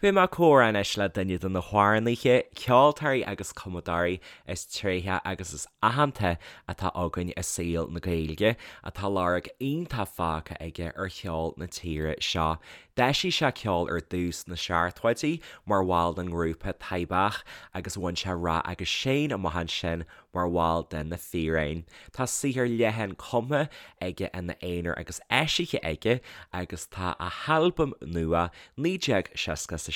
Beidh mé ag comhrá anois le duine de na hamhránaithe, ceoltóirí agus cumadóirí is tréithe agus is aitheanta atá againn i saol na Gaeilge, atá lorg iontach fágtha aige ar cheol na tíre seo. D'eisigh sé ceol ar dtús sna seachtóidí mar bhall den ngrúpa Taibhdhearc agus bhain sé rath agus séan amach ansin mar bhall de Na Fíréin. Tá saothar leathan cumtha aige ina aonar agus eisithe aige agus tá a halbam nua 1967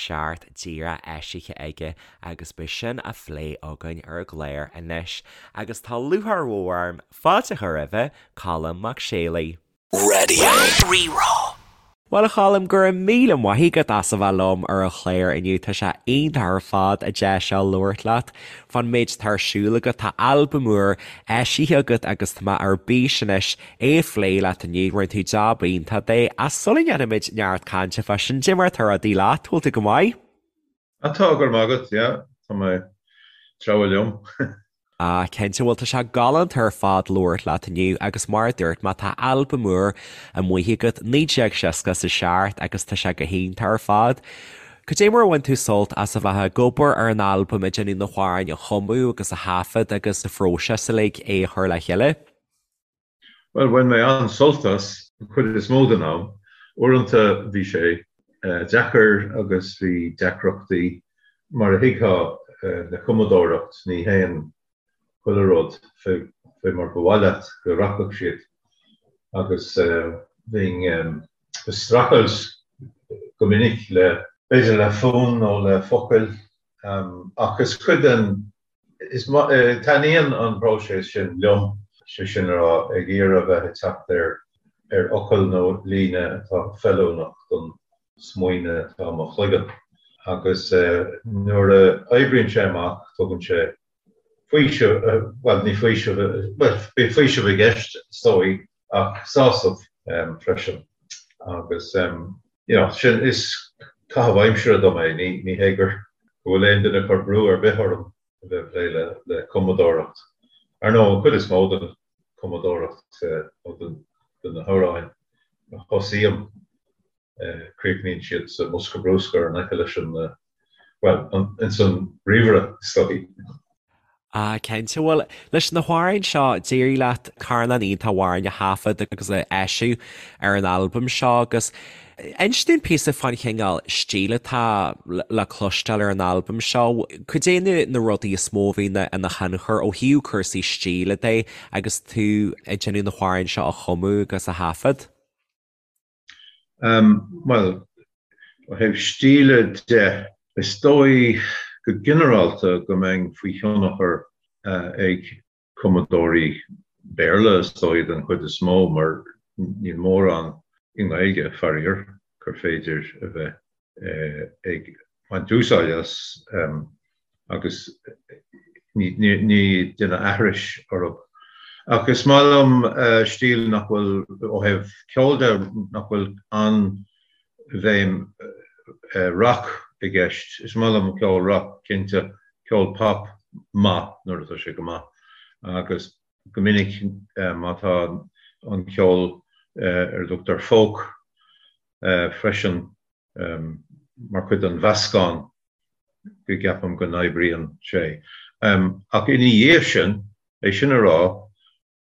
díreach eisithe aige agus beidh sin á phlé againn ar an gclár anois. Agus tá lúcháir mhór orm fáilte a chur roimhe, Colm Mac Séalaigh. Radio Rí-Rá. Bhuel, a Choilm, go raibh míle maith agat as a bheith liom ar an chlár inniu. Tá sé iontach ar fad an deis seo labhairt leat fán méid atá ar siúl agat. Tá albam úr eisithe agat agus tá mé ar bís anois é a phlé leat inniu. Rinne tú jab iontach de. Ach sula ndéanfaimid neart cainte fá sin, cad é mar atá rudaí leat, bhfuil tú go maith? Ah tá, go raibh maith agat, yeah, tá mé ag treabhadh liom. Ah, cinnte, bhuel tá sé galánta ar fad labhairt leat inniu agus mar a dúirt mé tá albam úr amuigh agat, 1967 agus tá sé go hiontach ar fad. Cad é mar a bhain tú sult as a bheith ag obair ar an albam, ag déanamh na hamhráin a chumadh agus a thaifead agus an phróiseas uilig é a chur le chéile? Bhuel, bhain mé an-sult as, an chuid is mó den am. Uaireanta bhí sé deacair agus bhí deacrachtaí, mar a thuigfeá le cumadóireacht, ní théann chuile rud fé mar ba mhaith leat go rachadh siad agus bhínn ag streachailt go minic le, b'fhéidir le fonn nó le focail ach is cuid den Is taitníonn an próiseas sin liom, sé sin a rá, ag iarraidh a bheith ag teacht ar ar fhocal nó líne atá feiliúnach don smaoineamh atá i mo chloigeann. Agus nuair a oibríonn sé amach, tugann sé faoiseamh, bhuel, ní faoiseamh, bhuel, bíonn faoiseamh i gceist, is dóigh, ach sásamh freisin. Agus, you know, sin, is caitheamh aimsire dom é, ní, ní hé gur, go bhfuil aon duine ag cur brú ar bith orm a bheith ag plé le, le cumadóireacht. Ar ndóigh, an chuid is mó den chumadóireacht nó den, de na hamhráin a thosaím, críochnaíonn siad sa mbosca bruscair in aice leis an, bhuel, ins an ríomhaire, is dóigh. Ah, cinnte. Bhuel, leis na hamhráin seo, d'éirigh leat carnán iontach amhráin a thaifead agus a eisiú ar an albam seo agus inis dúinn píosa fán chineál stíl atá le cloisteáil ar an albam seo. Cad é na rudaí is mó a bhí ina thionchar ó thaobh cúrsaí stíle de agus tú ag déanamh na hamhráin seo a chumadh agus a thaifead? Bhuel, ó thaobh stíle de, is dóigh go ginearálta go mbeinn faoi thionchar ag cumadóirí Béarla, is dóigh, den chuid is mó, mar níl mórán i nGaeilge, faraor, gur féidir a bheith ag baint úsáid as agus ní déanamh aithris orthu. Ach is maith liom stíl nach bhfuil, ó thaobh ceoil de, nach bhfuil an-bhéim rock i gceist. Is maith liom ceol rock, cinnte, ceol pop maith nuair atá sé go maith agus go minic má tá an ceol ar a dtugtar folk freisin mar chuid den mheascán go gceapaim go n-oibríonn sé. Ach ina dhiaidh sin, é sin a rá,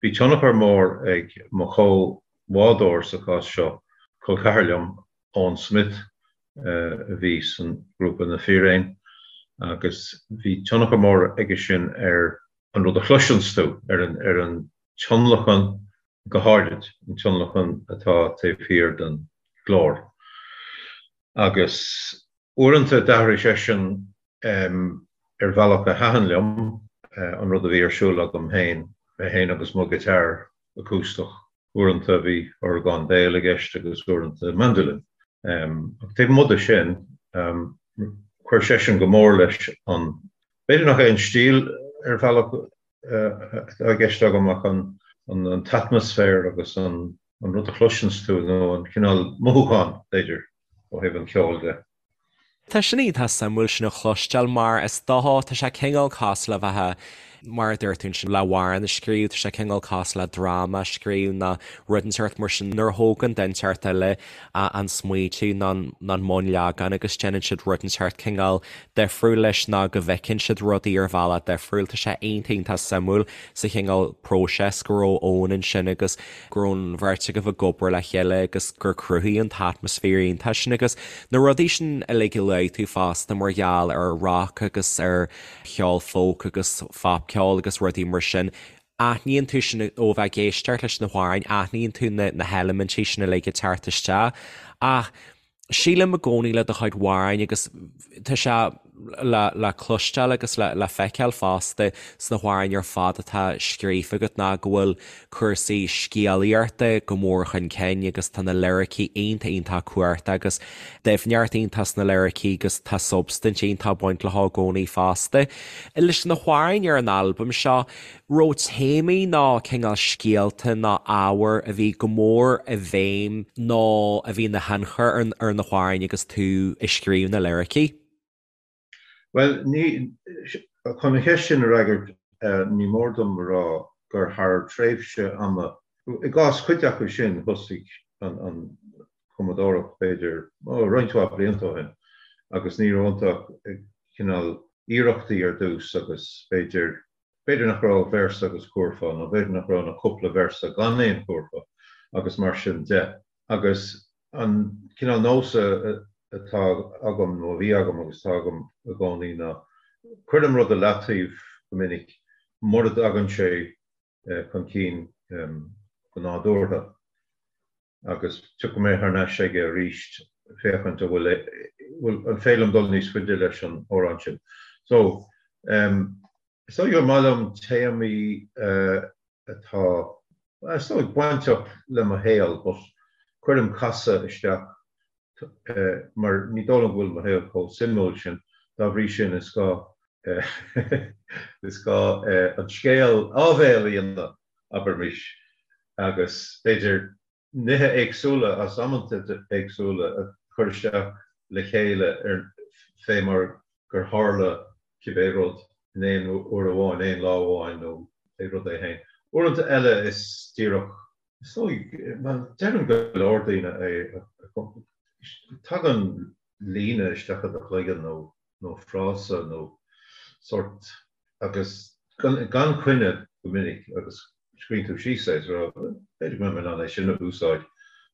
bhí tionchar mór ag mo chomhbhádóir sa chás seo, col ceathar liom, Eoin Smith, a bhí san ghrúpa Na Fíréin, agus bhí tionchar mór aige sin ar an rud a chloiseanns tú, ar an tionlacan go háirid an tionlacan atá taobh thiar den ghlór. Agus uaireanta d'athraigh seisean ar bhealach a thaitin liom an rud a bhí ar siúl agam féin, mé féin agus mo ghiotár acústach. Uaireanta bhí orgán béil i gceist agus uaireanta mandolin. Ach taobh amuigh de sin, chuir seisean go mór leis an, b'fhéidir nach é an stíl ar bhealach, atá i gceist agam ach an t-atmaisféar agus an rud a chloiseanns tú nó an cineál mothúchán, b'fhéidir, ó thaobh an cheoil de. Tá sin iontach suimiúil sin a chloisteáil mar is dócha, tá sé cineál cosúil le bheith. Mar a dúirt tú ansin, le hamhrán a scríobh, tá sé cineál cosúil le dráma a scríobh nó rud inteacht mar sin nuair a thógann duine inteacht eile an smaoitiú nó an bunleagán agus déanann siad rud inteacht cineál difriúil leis nó go bhfeiceann siad rudaí ar bhealach difriúil. Tá sé iontach iontach suimiúil sa chineál próiseas go raibh Eoin ansin agus go raibh an bheirt agaibh ag obair le chéile agus gur cruthaíodh an t-atmaisféar iontach sin agus na rudaí sin uilig a luaigh tú fosta mar gheall ar rock agus ar cheol folk agus phopcheol agus rudaí mar sin. Aithníonn tú sin ó bheith ag éisteacht leis na hamhráin, aithníonn tú na na heilimintí sin uilig ag teacht isteach. Ach sílim i gcónaí le do chuid amhráin agus tá sé le le cloisteáil agus le le feiceáil fosta sna hamhráin ar fad atá scríofa agat ná go bhfuil cúrsaí scéalaíochta go mór chun cinn agus tá na liricí iontach iontach cumhachtach agus doimhneacht iontach sna liricí agus tá substaint iontach ag baint leo i gcónaí fosta. Leis na hamhráin ar an albam seo, raibh téamaí nó cineál scéalta nó ábhair a bhí go mór i bhfeidhm nó a bhí ina thionchar ar na hamhráin agus tú ag scríobh na liricí? Bhuel, ní, chun an cheist sin a fhreagairt, ní mór dom a rá gur thar tréimhse ama, i gcás cuid acu sin, thosaigh an chumadóireacht, b'fhéidir, roinnt mhaith blianta ó shin, agus ní raibh iontu ach cineál iarrachtaí ar dtús agus b'fhéidir, b'fhéidir nach raibh ach véarsa agus cúrfá, nó b'fhéidir nach raibh ach cúpla véarsa gan aon chúrfá agus mar sin de. Agus an cineál nós atá agam, nó a bhí agam agus atá agam i gcónaí ná cuirim rud i leataobh go minic mura dtagann sé chun cinn go nádúrtha agus tiocfaidh mé thar n-ais aige arís féachaint an bhfuil, bhfuil, an féidir liom dul níos faide leis an amhrán sin. So, is dóigh gur maith liom téamaí atá, is dóigh, bainteach le mo shaol but cuirim casadh isteach mar ní dóigh liom go bhfuil mo shaol chomh suimiúil sin, dá bhrí sin is gá is gá an scéal áibhéil a dhéanamh, abraimis, agus b'fhéidir nithe éagsúla as amanta éagsúla a chur isteach le chéile ar fé mar gur tharla cibé rud in aon uair amháin, aon lá amháin nó pé rud é féin. Uaireanta eile is díreach, is dóigh, bhuel, deireann go leor daoine é, tagann líne isteach i do chloigeann nó nó frása nó sórt agus gan coinne go minic agus scríobhann tú síos é is rá b'fhéidir go mbeidh mé in ann é sin a úsáid.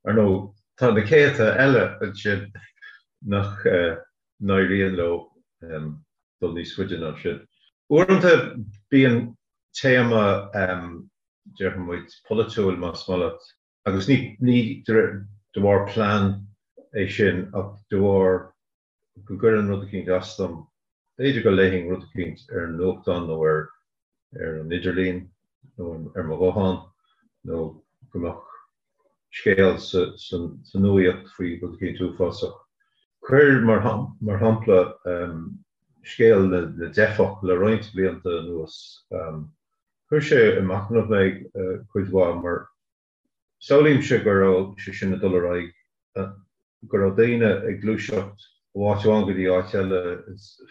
Ar ndóigh, tá na céadta eile ansin nach n-éiríonn leo dul níos faide ná sin. Uaireanta bíonn téama, déarfaidh muid, polaitiúil más maith leat, agus ní de bharr plean é sin ach de bharr go gcuireann rud eicínt as dom. B'fhéidir go léifinn rud eicínt ar an nuachtán nó ar ar an idirlíon nó ar mo ghuthán nó go mbeadh scéal sa sa nuaíocht faoi rud eicínt uafásach. Cuir mar mar shampla scéal na na dteifeach le roinnt blianta anuas. Chuir sé ag machnamh mé cuid mhaith mar Samhlaímse go raibh sé sin ag dul ar aghaidh, go raibh daoine ag gluaiseacht ó áit amháin go dtí áit eile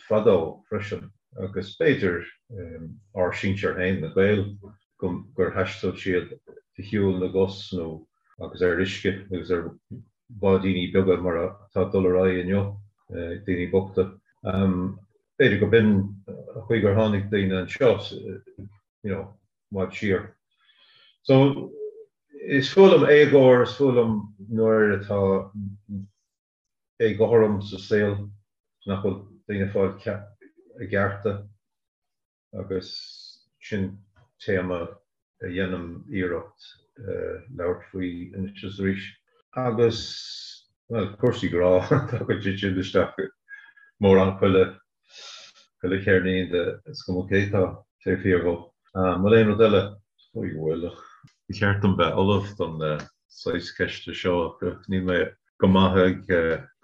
fadó freisin, agus b'fhéidir ár sinsir féin, na Gaeil, gur thaistil siad de shiúl na gcos nó agus ar uisce agus ar bháidíní beaga mar atá ag dul ar aghaidh inniu, daoine bochta. B'fhéidir go b'in an chaoi gur tháinig daoine anseo, you know. i bhfad siar. So, is fuath liom éagóir, is fuath liom nuair atá éagothrom sa saol, nach bhfuil daoine ag fáil a gcearta agus sin téama a dhéanaim iarracht labhairt faoi anois is arís. Agus, bhuel, cúrsaí grá, tagann siad sin isteach mórán chuile Chuile cheirnín de is cuma cé atá taobh thiar dhó. An bhfuil aon rud eile? Is dóigh go bhfuil ach ba cheart dom bheith ullamh don saghas ceiste seo ach níl mé go maith ag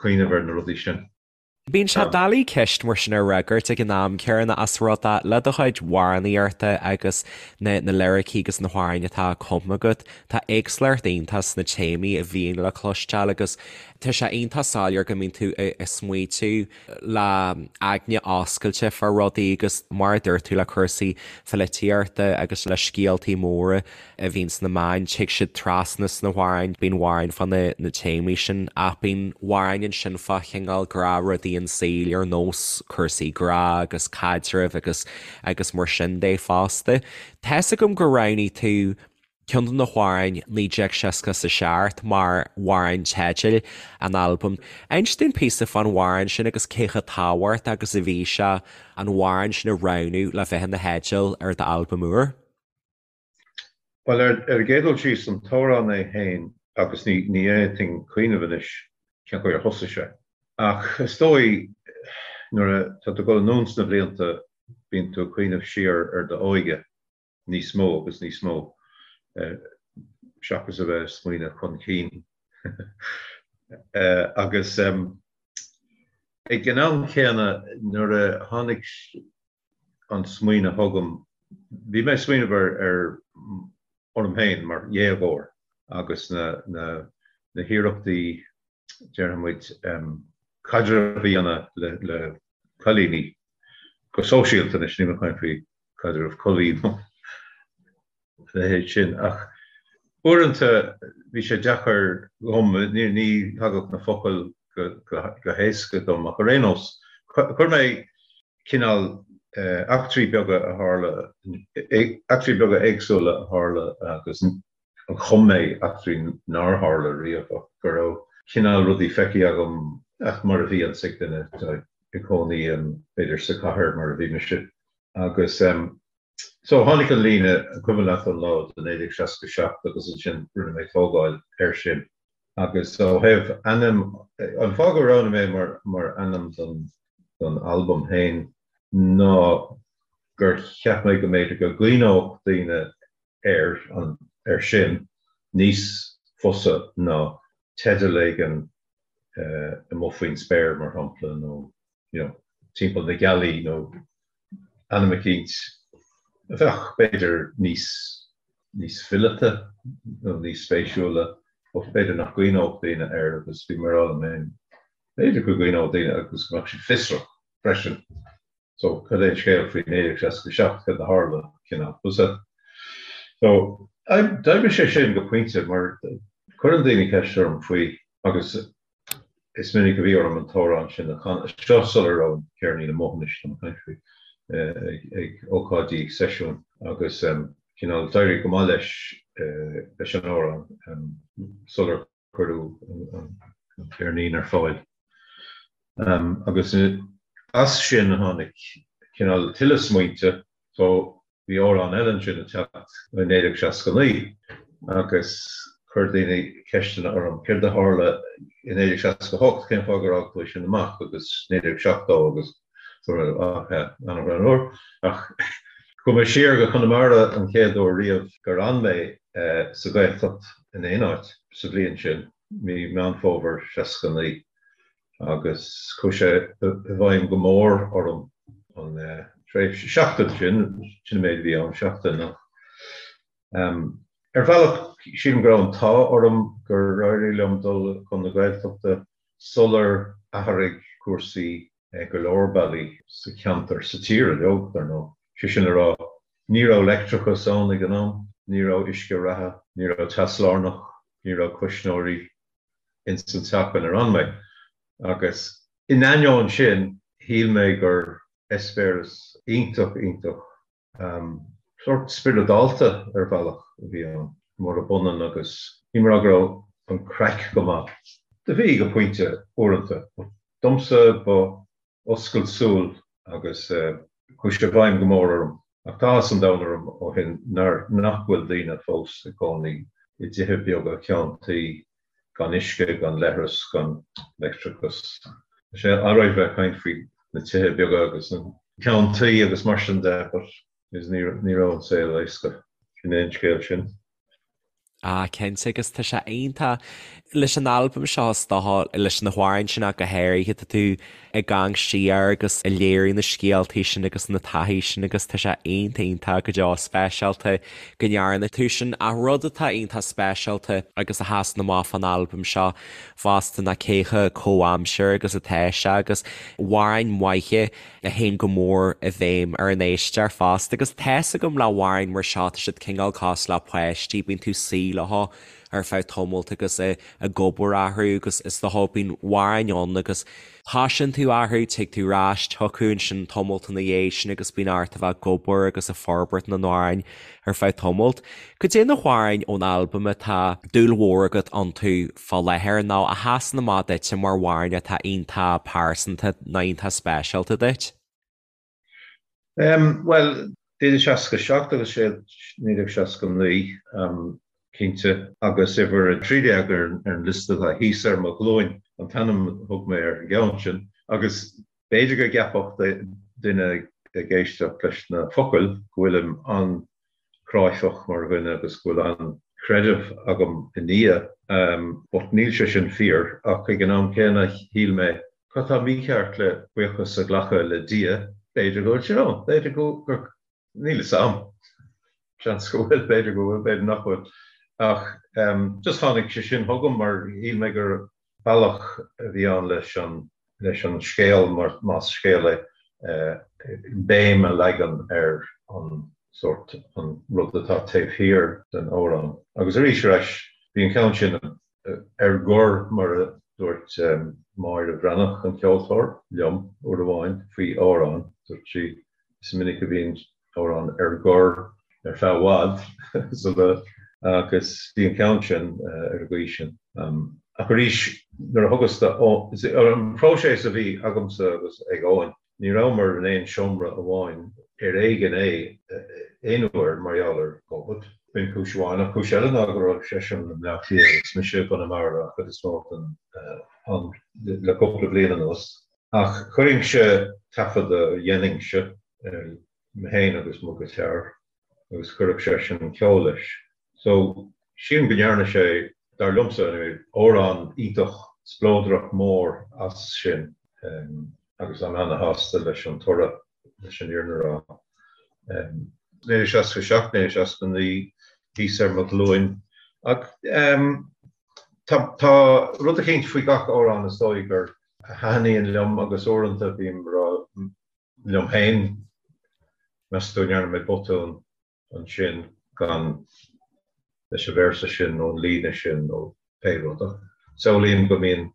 cuimhneamh ar na rudaí sin. Bíonn sé doiligh ceist mar sin a fhreagairt ag an am céanna ós rud é le do chuid amhránaíochta agus na na liricí agus na hamhráin atá cumtha agat, tá éagsúlacht iontach sna téamaí a bhíonn le cloisteáil agus tá sé iontach soiléir go mbíonn tú ag smaoitiú le aigne oscailte fá rudaí agus mar a dúirt tú le cúrsaí pholaitíochta agus le scéaltaí móra a bhíonn sna meáin, tig siad trasna sna hamhráin, bíonn amhráin fá na na téamaí sin ach bíonn amhráin ansin fá chineál gnáthrudaí an saoil ar nós cúrsaí grá agus caidrimh agus agus mar sin de fosta. Tá's agam gur roghnaigh tú ceann de na hamhráin 1967 mar amhrán teidil an albaim. Inis dúinn píosa fán amhrán sin agus cé chomh tábhachtach agus a bhí sé an amhrán sin a roghnú le bheith ina theideal ar d'albam úr. Bhuel, ar an gcéad dul síos, an t-amhrán é féin, agus ní fhéadfainn cuimhneamh anois cén chaoi ar thosaigh sé, ach is dóigh nuair atá tú ag dul anonn sna blianta bíonn tú ag cuimhneamh siar ar d'óige níos mó agus níos mó seachas a bheith ag smaoineamh chun cinn. Agus ag an am céanna nuair a tháinig an smaoineamh chugam, bhí mé ag smaoineamh ar ar orm féin mar dhéagóir agus na na na hiarrachtaí, déarfaidh muid, caidreamh a dhéanamh le le cailíní go sóisialta anois, níl mé ag caint faoi caidreamh collaí nó a leithéid sin, ach uaireanta bhí sé deacair dhom, ní ní thagadh na focail go go go héasca dom ach ar aon nós, chuir mé cineál eachtraí beaga a tharla, eachtraí beaga éagsúla a tharla agus chum mé eachtraí nár tharla riamh ach go raibh cineál rudaí feicthe agam ach mar a bhíonns ag duine atá ag cónaí b'fhéidir sa chathair mar a bhí mise agus so tháinig an líne an cuimhin leat an lá de 1967 agus ansin rinne mé tógáil air sin. Agus ó thaobh ainm, an fáth gur roghnaigh mé mar mar ainm don don albam féin ná gur cheap mé go mb'fhéidir go gcuimhneodh daoine air an air sin níos fusa ná teideal éigin amuigh faoin spéir, mar shampla, nó you know, timpeall na gealaí nó ainm eicínt a bheadh, b'fhéidir, níos, níos fileata nó níos spéisiúla, but b'fhéidir nach gcuimhneodh daoine air agus bhí mé ag rá liom féin, b'fhéidir go gcuimhneodh daoine agus go mbeadh siad fiosrach freisin. So, cad é an scéal faoi 1967, cad a tharla, cineál. So, d'oibrigh sé sin go pointe mar cuireann daoine ceist orm faoi agus Is minic a bhí orm an t-amhrán sin a chanadh, seo sula raibh an ceirnín amuigh anois, tá mé ag caint faoi, ag ócáidí seisiúin agus cineál d'éirigh go maith leis leis an amhrán sular cuireadh an ceirnín ar fáil. Agus as sin a tháinig cineál tuilleadh smaointe so Bhí amhrán eile ansin ag teacht i 1969 agus chuir daoine ceisteanna orm, céard a tharla i 1968, cén fáth gur fhág tú é sin amach agus 1970 agus ach an-ghreannmhar. Ach chuaigh mé siar go Conamara an chéad uair riamh gur fhan mé sa Ghaeltacht in aon áit sa bhliain sin, mí Meán Fómhair 69. agus chuaigh sé i bhfeidhm go mór orm an tréimhse, seachtain sin, sin an méid a bhí ann, seachtain ach ar bhealach sílim go raibh an t-ádh orm gur éirigh liom dul chun na Gaeltachta sular athraigh cúrsaí go leor bealaí sa cheantar, sa tír uilig, dar ndóigh. Sé sin le rá, ní raibh leictreachas ann ag an am, ní raibh uisce reatha, ní raibh teas lárnach, ní raibh cuisneoirí, ins an teach inar fhan mé agus in ainneoin sin shíl mé gur eispéireas iontach iontach sórt spioradálta ar bhealach a bhí ann, murab ionann agus ní mar go raibh an craic go maith, do bhí go pointe uaireanta, but domsa ba oscailt súl agus chuaigh sé i bhfeidhm go mór orm. Ach tá áthas an domhain orm ó shin nach bhfuil daoine fós ag cónaí i dtithe beaga ceann tuí gan uisce, gan leithreas, gan leictreachas. Tá sé alright bheith ag caint faoi na tithe beaga agus an ceann tuí agus mar sin de but ní raibh an saol éasca. Sin é an scéal sin. Ah cinnte agus tá sé iontach leis an albam seo is dócha leis na hamhráin sin ach go háirithe tá tú ag amharc siar agus ag léiriú na scéaltaí sin agus na taithí sin agus tá sé iontach iontach go deo speisialta go ndearna tú sin. Ach rud atá iontach speisialta agus a sheasann amach fán albam seo fosta ná cé chomh comhaimseartha agus atá sé agus amhráin mhaithe a théann go mór i bhfeidhm ar an éisteoir fosta agus tá's agam le hamhráin mar seo tá siad cineál cosúil le páistí, bíonn tú suí leo ar feadh tamalt agus ag obair orthu agus is dócha bíonn amhráin ann agus tosaíonn tú orthu, tig tú ar ais chucu ansin tamalt ina dhiaidh sin agus bíonn ort a bheith ag obair agus ag forbairt na n-amhrán ar feadh tamalt. Cad é na hamhráin ón albam atá dúil mhór agat iontu fá láthair nó a sheasann amach duitse mar amhráin atá iontach pearsanta nó iontach speisialta duit? Bhuel, 1967 agus 1969, cinnte, agus uimhir 13 ar an liosta atá thíos ar mo ghlúin an t-ainm a thug mé ar an gceann sin, agus b'fhéidir go gceapfadh duine ag éisteacht leis na focail go bhfuilim an-chráifeach mar dhuine agus go bhfuil an-chreideamh agam i nDia, but níl sé sin fíor, ach ag an am céanna shíl mé Cad tá mícheart le buíochas a ghlacadh le Dia? B'fhéidir go bhfuil sé ann, b'fhéidir go, gur, níl fhios a'm. Seans go bhfuil, b'fhéidir go bhfuil, b'fhéidir nach bhfuil. Ach just tháinig sé sin chugam mar shíl mé gur bealach a bhí ann leis an, leis an scéal, mar más scéal é, béim a leagan ar an sórt, an rud atá taobh thiar den amhrán. Agus arís ar ais, bhí an ceann sin ar gor, mar a dúirt Máire Bhreathnach, an ceoltóir, liom uair amháin faoi amhrán. Dúirt sí, 'Is minic a bhíonn amhrán ar gor ar feadh i bhfad sula agus bhí an ceann sin ar an gcaoi sin. Ach arís, nuair a thugas do, an próiseas a bhí agamsa agus ag Eoin, Ní rabhamar in aon seomra amháin ar éigean é aon uair mar gheall ar Covid. B'in cúis amháin, ach cúis eile ná go raibh seisean i mBleá Cliath agus mise i gConamara an chuid is mó den am le cúpla bliain anuas. Ach chuirinnse taifead a dhéanainnse, mé féin agus mo ghiotár, agus chuirfeadh seisean an ceol leis. So, sílim go ndearna sé, dar liomsa anyway, amhrán iontach spleodrach mór as sin agus táim ana-shásta leis an toradh, leis an fhírinne a rá. 1967, 1969, thíos ar mo ghlúin. Ach tá tá rud eicínt faoi gach amhrán is dóigh gur a thaitníonn liom agus uaireanta bím ag rá liom féin, meas tú an ndearna mé botún ansin gan leis an véarsa sin nó an líne sin nó pé rud. Ach samhlaím go mbíonn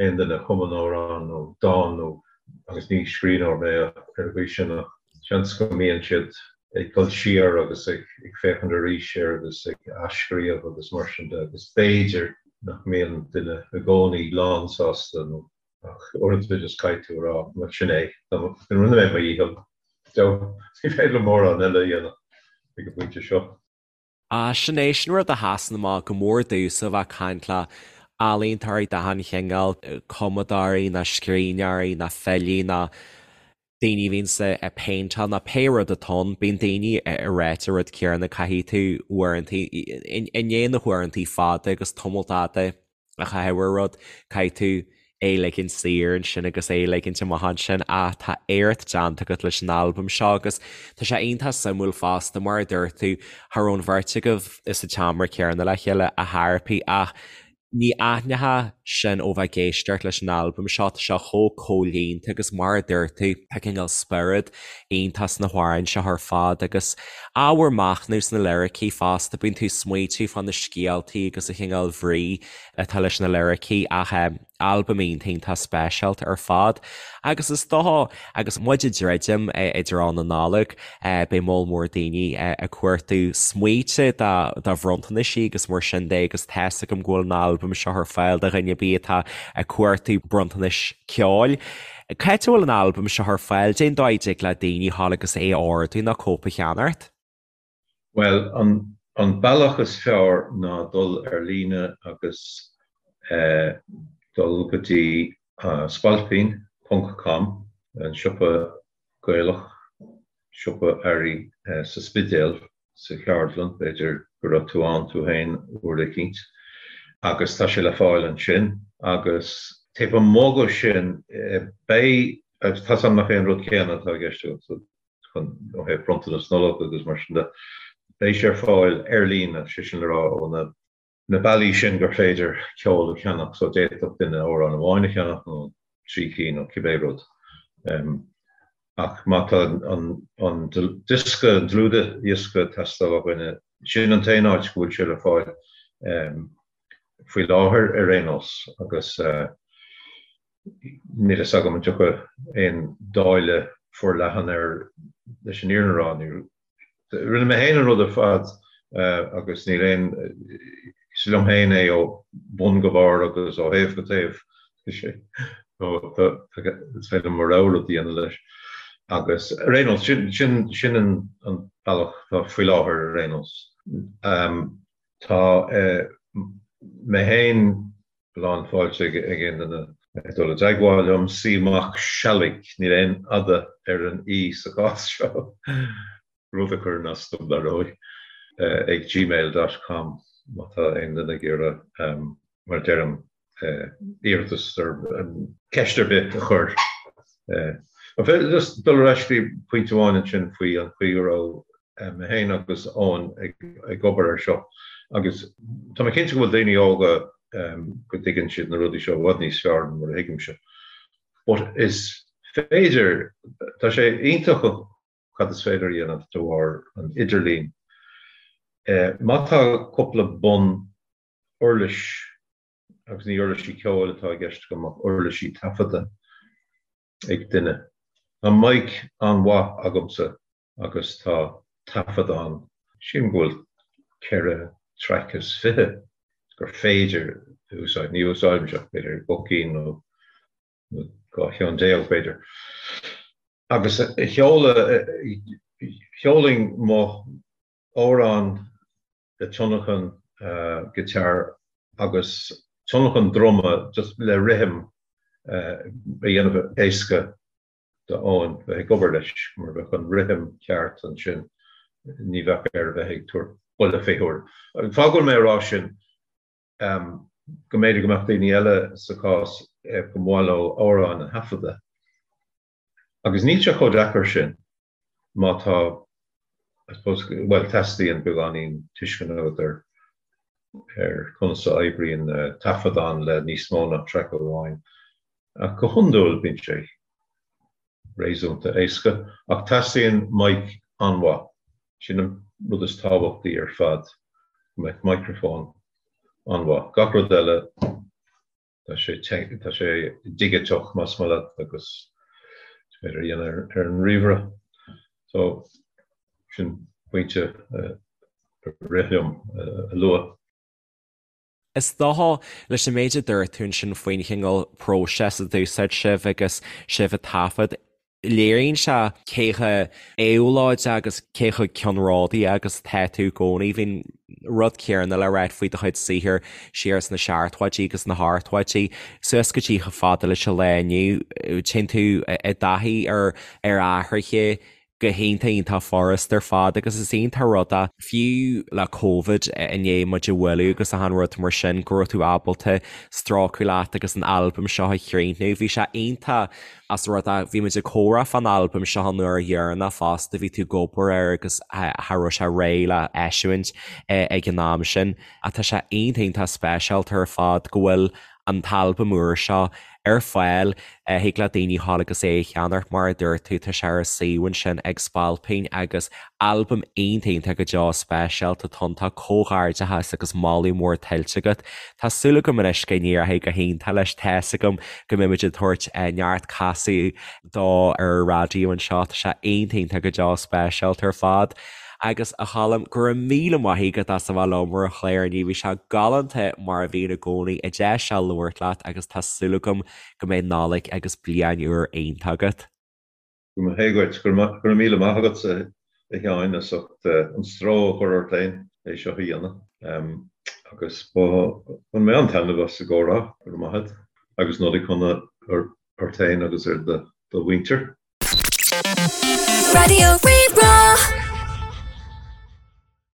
aon duine a chumann amhrán nó dán nó, agus ní scríbhneoir mé ar an gcaoi sin ach seans go mbíonn siad ag dul siar agus ag féachaint arís air agus ag athscríobh agus mar sin de agus b'fhéidir nach mbíonn duine i gcónaí lánsásta nó Ach uaireanta just caithfidh tú a rá, bhuel sin é, rinne mé mo dhícheall. Ní féidir liom mórán eile a dhéanamh ag an bpointe seo. Ah, sin é, sin rud a sheasann amach go mór domhsa a bheith ag caint le ealaíontóirí d'achan chineál, cumadóirí ná scríbhneoirí ná filí ná daoine a bhíonns ag péinteáil ná pé rud atá ann, bíonn daoine ag ráit an rud céanna, caithfidh tú uaireanta, i ndiaidh na huaireanta fada agus tamall fada a chaitheamh ar rud, caithfidh tú é a ligint saor ansin agus é a ligint amach ansin ach tá éacht déanta agat leis an albam seo agus tá sé iontach suimiúil fosta mar a dúirt tú, cha raibh an bheirt agaibh sa tseomra céanna le chéile a thairpí ach Ní aithneofá sin ó bheith ag éisteacht leis an albam seo, tá sé chomh comhlíonta agus mar a dúirt tú, tá cineál spiorad iontach sna hamhráin seo ar fad agus ábhar machnaimh sna liricí fosta, bíonn tú ag smaoitiú fá na scéaltaí agus an chineál bhrí atá leis na liricí ach albam iontach iontach speisialta ar fad. Agus is dócha, agus muid ag druidim i dtreo na Nollag, beidh moll mór daoine ag cuartú smaointe do bhronntanais agus mar sin de agus tá's agam go bhfuil an albam seo ar fáil do dhuine ar bith atá ag cuartú bronntanais ceoil. Cá háit a bhfuil an albam seo ar fáil? Cén dóigh a dtig le daoine dhul agus é a ordú nó cóip a cheannacht? Bhuel, an bealach is fearr ná dul ar líne agus dul go dtí spailpín ponc com, an siopa Gaelach, siopa earraí sa Spidéal, sa cheardlann, b'fhéidir. go raibh tú ann tú féin uair eicínt agus tá sé le fáil ansin agus taobh amuigh de sin beidh, agus tá 's agam nach é an rud céanna atá i gceist agat chun ó thaobh bronntanas Nollag agus mar sin de, beidh sé ar fáil ar líne, sé sin le rá ó na. na bealaí sin gur féidir ceol a cheannach so d'fhéadfadh duine amhrán amháin a cheannach nó 3 cinn nó cibé rud. Ach má tá an diosca, an dlúthdhiosca ag teastáil ó dhuine, sin an t-aon áit go bhfuil sé le fáil faoi láthair ar aon nós agus níl a fhios agam an dtiocfaidh aon dáileadh forleathan air leis an fhírinne a rá. Rinne mé féin an rud ar fad agus níl aon, is liom féin é ó bhun go barr agus ó thaobh go taobh. Is féidir liom mo rogha rud a dhéanamh leis. Agus ar aon nós, sin, sin, sin an bealach atá faoi láthair ar aon nós. Tá mé féin lán fáilte ag aon duine dul i dteagmháil liom, C Mac Sealaigh, níl aon fhada ar an í sa chás seo, rud a chuireann as dom, dar ndóigh, ag gmail dot com má tá aon duine ag iarraidh, mar a deirim, iarratas ar cheist ar bith a chur. Just dul ar ais go dtí pointe amháin ansin faoi an chaoi go raibh mé féin agus Eoin ag obair air seo agus tá mé cinnte go bhfuil daoine óga go dtuigeann siad na rudaí seo i bhfad níos fearr ná mar a thuigimse. But is féidir, tá sé iontach cad is féidir a dhéanamh de bharr an idirlín. Má tá cúpla bun uirlis, agus ní uirlisí ceoil atá i gceist agam ach uirlisí taifeadta ag duine. Tá mic an-mhaith agamsa agus tá taifeadán, sílim go bhfuil 4 traic is 20 gur féidir a úsáid, ní úsáidimse ach b'fhéidir 2 cinn nó 12 cheann b'fhéidir. Agus sheoladh, sheolfainn mo amhrán le tionlacan guitar agus tionlacan druma just le rithim a dhéanamh éasca d'Eoin bheith ag obair leis, mar bheadh an rithim ceart ansin, ní bheadh air a bheith ag tabhairt buille fé huair. An fáth go bhfuil mé ag rá sin, go mb'fhéidir go mbeadh daoine eile sa chás go mba mhaith leo amhráin a thaifeadadh. Agus níl sé chomh deacair sin má tá, I suppose, bhuel, teastaíonn beagáinín tuisceana agat ar ar conas a oibríonn taifeadán le níos mó ná traic amháin. Ach go hiondúil bíonn sé réasúnta éasca. Ach teastaíonn mic an-mhaith. Sin an rud is tábhachtaí ar fad, go mbeadh micreafón an-mhaith. Gach rud eile, tá sé tá sé digiteach más maith leat agus is féidir a dhéanamh ar an ríomhaire. So, sin pointe a rith liom a lua. Is dócha, leis an méid a dúirt tú ansin faoin chineál próiseas a d'úsáid sibh agus sibh ag taifead, léiríonn sé cé chomh éabhlóideach agus cé chomh ceannródaíoch agus atá tú i gcónaí. Bhí an rud céanna le ráit faoi do chuid saothair siar sna seachtóidí agus na hochtóidí, suas go dtí chomh fada leis an lá inniu. Téann tú i dtaithí ar athruithe go hiontach iontach furast ar fad agus is iontach rud é, fiú le Covid i ndiaidh muid a bhualadh agus achan rud mar sin, go raibh tú ábalta strócadh leat agus an albam seo a chríochnú. Bhí sé iontach as rud é, bhí muid ag comhrá fán albam seo an uair dheireanach fosta, bhí tú ag obair air agus cha raibh sé réidh le eisiúint ag an am sin. Ach tá sé iontach iontach speisialta ar fad go bhfuil an t-albam úr seo ar fáil. Thig le daoine dhul agus é a cheannacht, mar a dúirt tú, tá sé ar an suíomh ansin ag Spailpín agus albam iontach iontach go deo speisialta atá ann. Tá comhghairdeachas agus moladh mór tuillte agat. Tá súil agam anois go n-éireoidh go hiontach leis. Tá's agam go mbeidh muid ag tabhairt neart casadh dó ar an raidió anseo. Tá sé iontach iontach go deo speisialta ar fad. Agus a Choilm, go raibh míle maith agat as a bheith liom ar an chlár inniu. Bhí sé galánta mar a bhíonn i gcónaí, deis a labhairt leat agus tá súil agam go mbeidh Nollaig agus Bliain Úr iontach agat. Go mba hé dhuit. Go raibh míle maith agatsa a Sheáin as ucht an stró a chur ort féin é seo a dhéanamh. Agus bhain mé an-taitneamh as an gcomhrá. Go raibh maith agat. Agus Nollaig shona ort féin agus ar do mhuintir. Raidió Rí-Rá.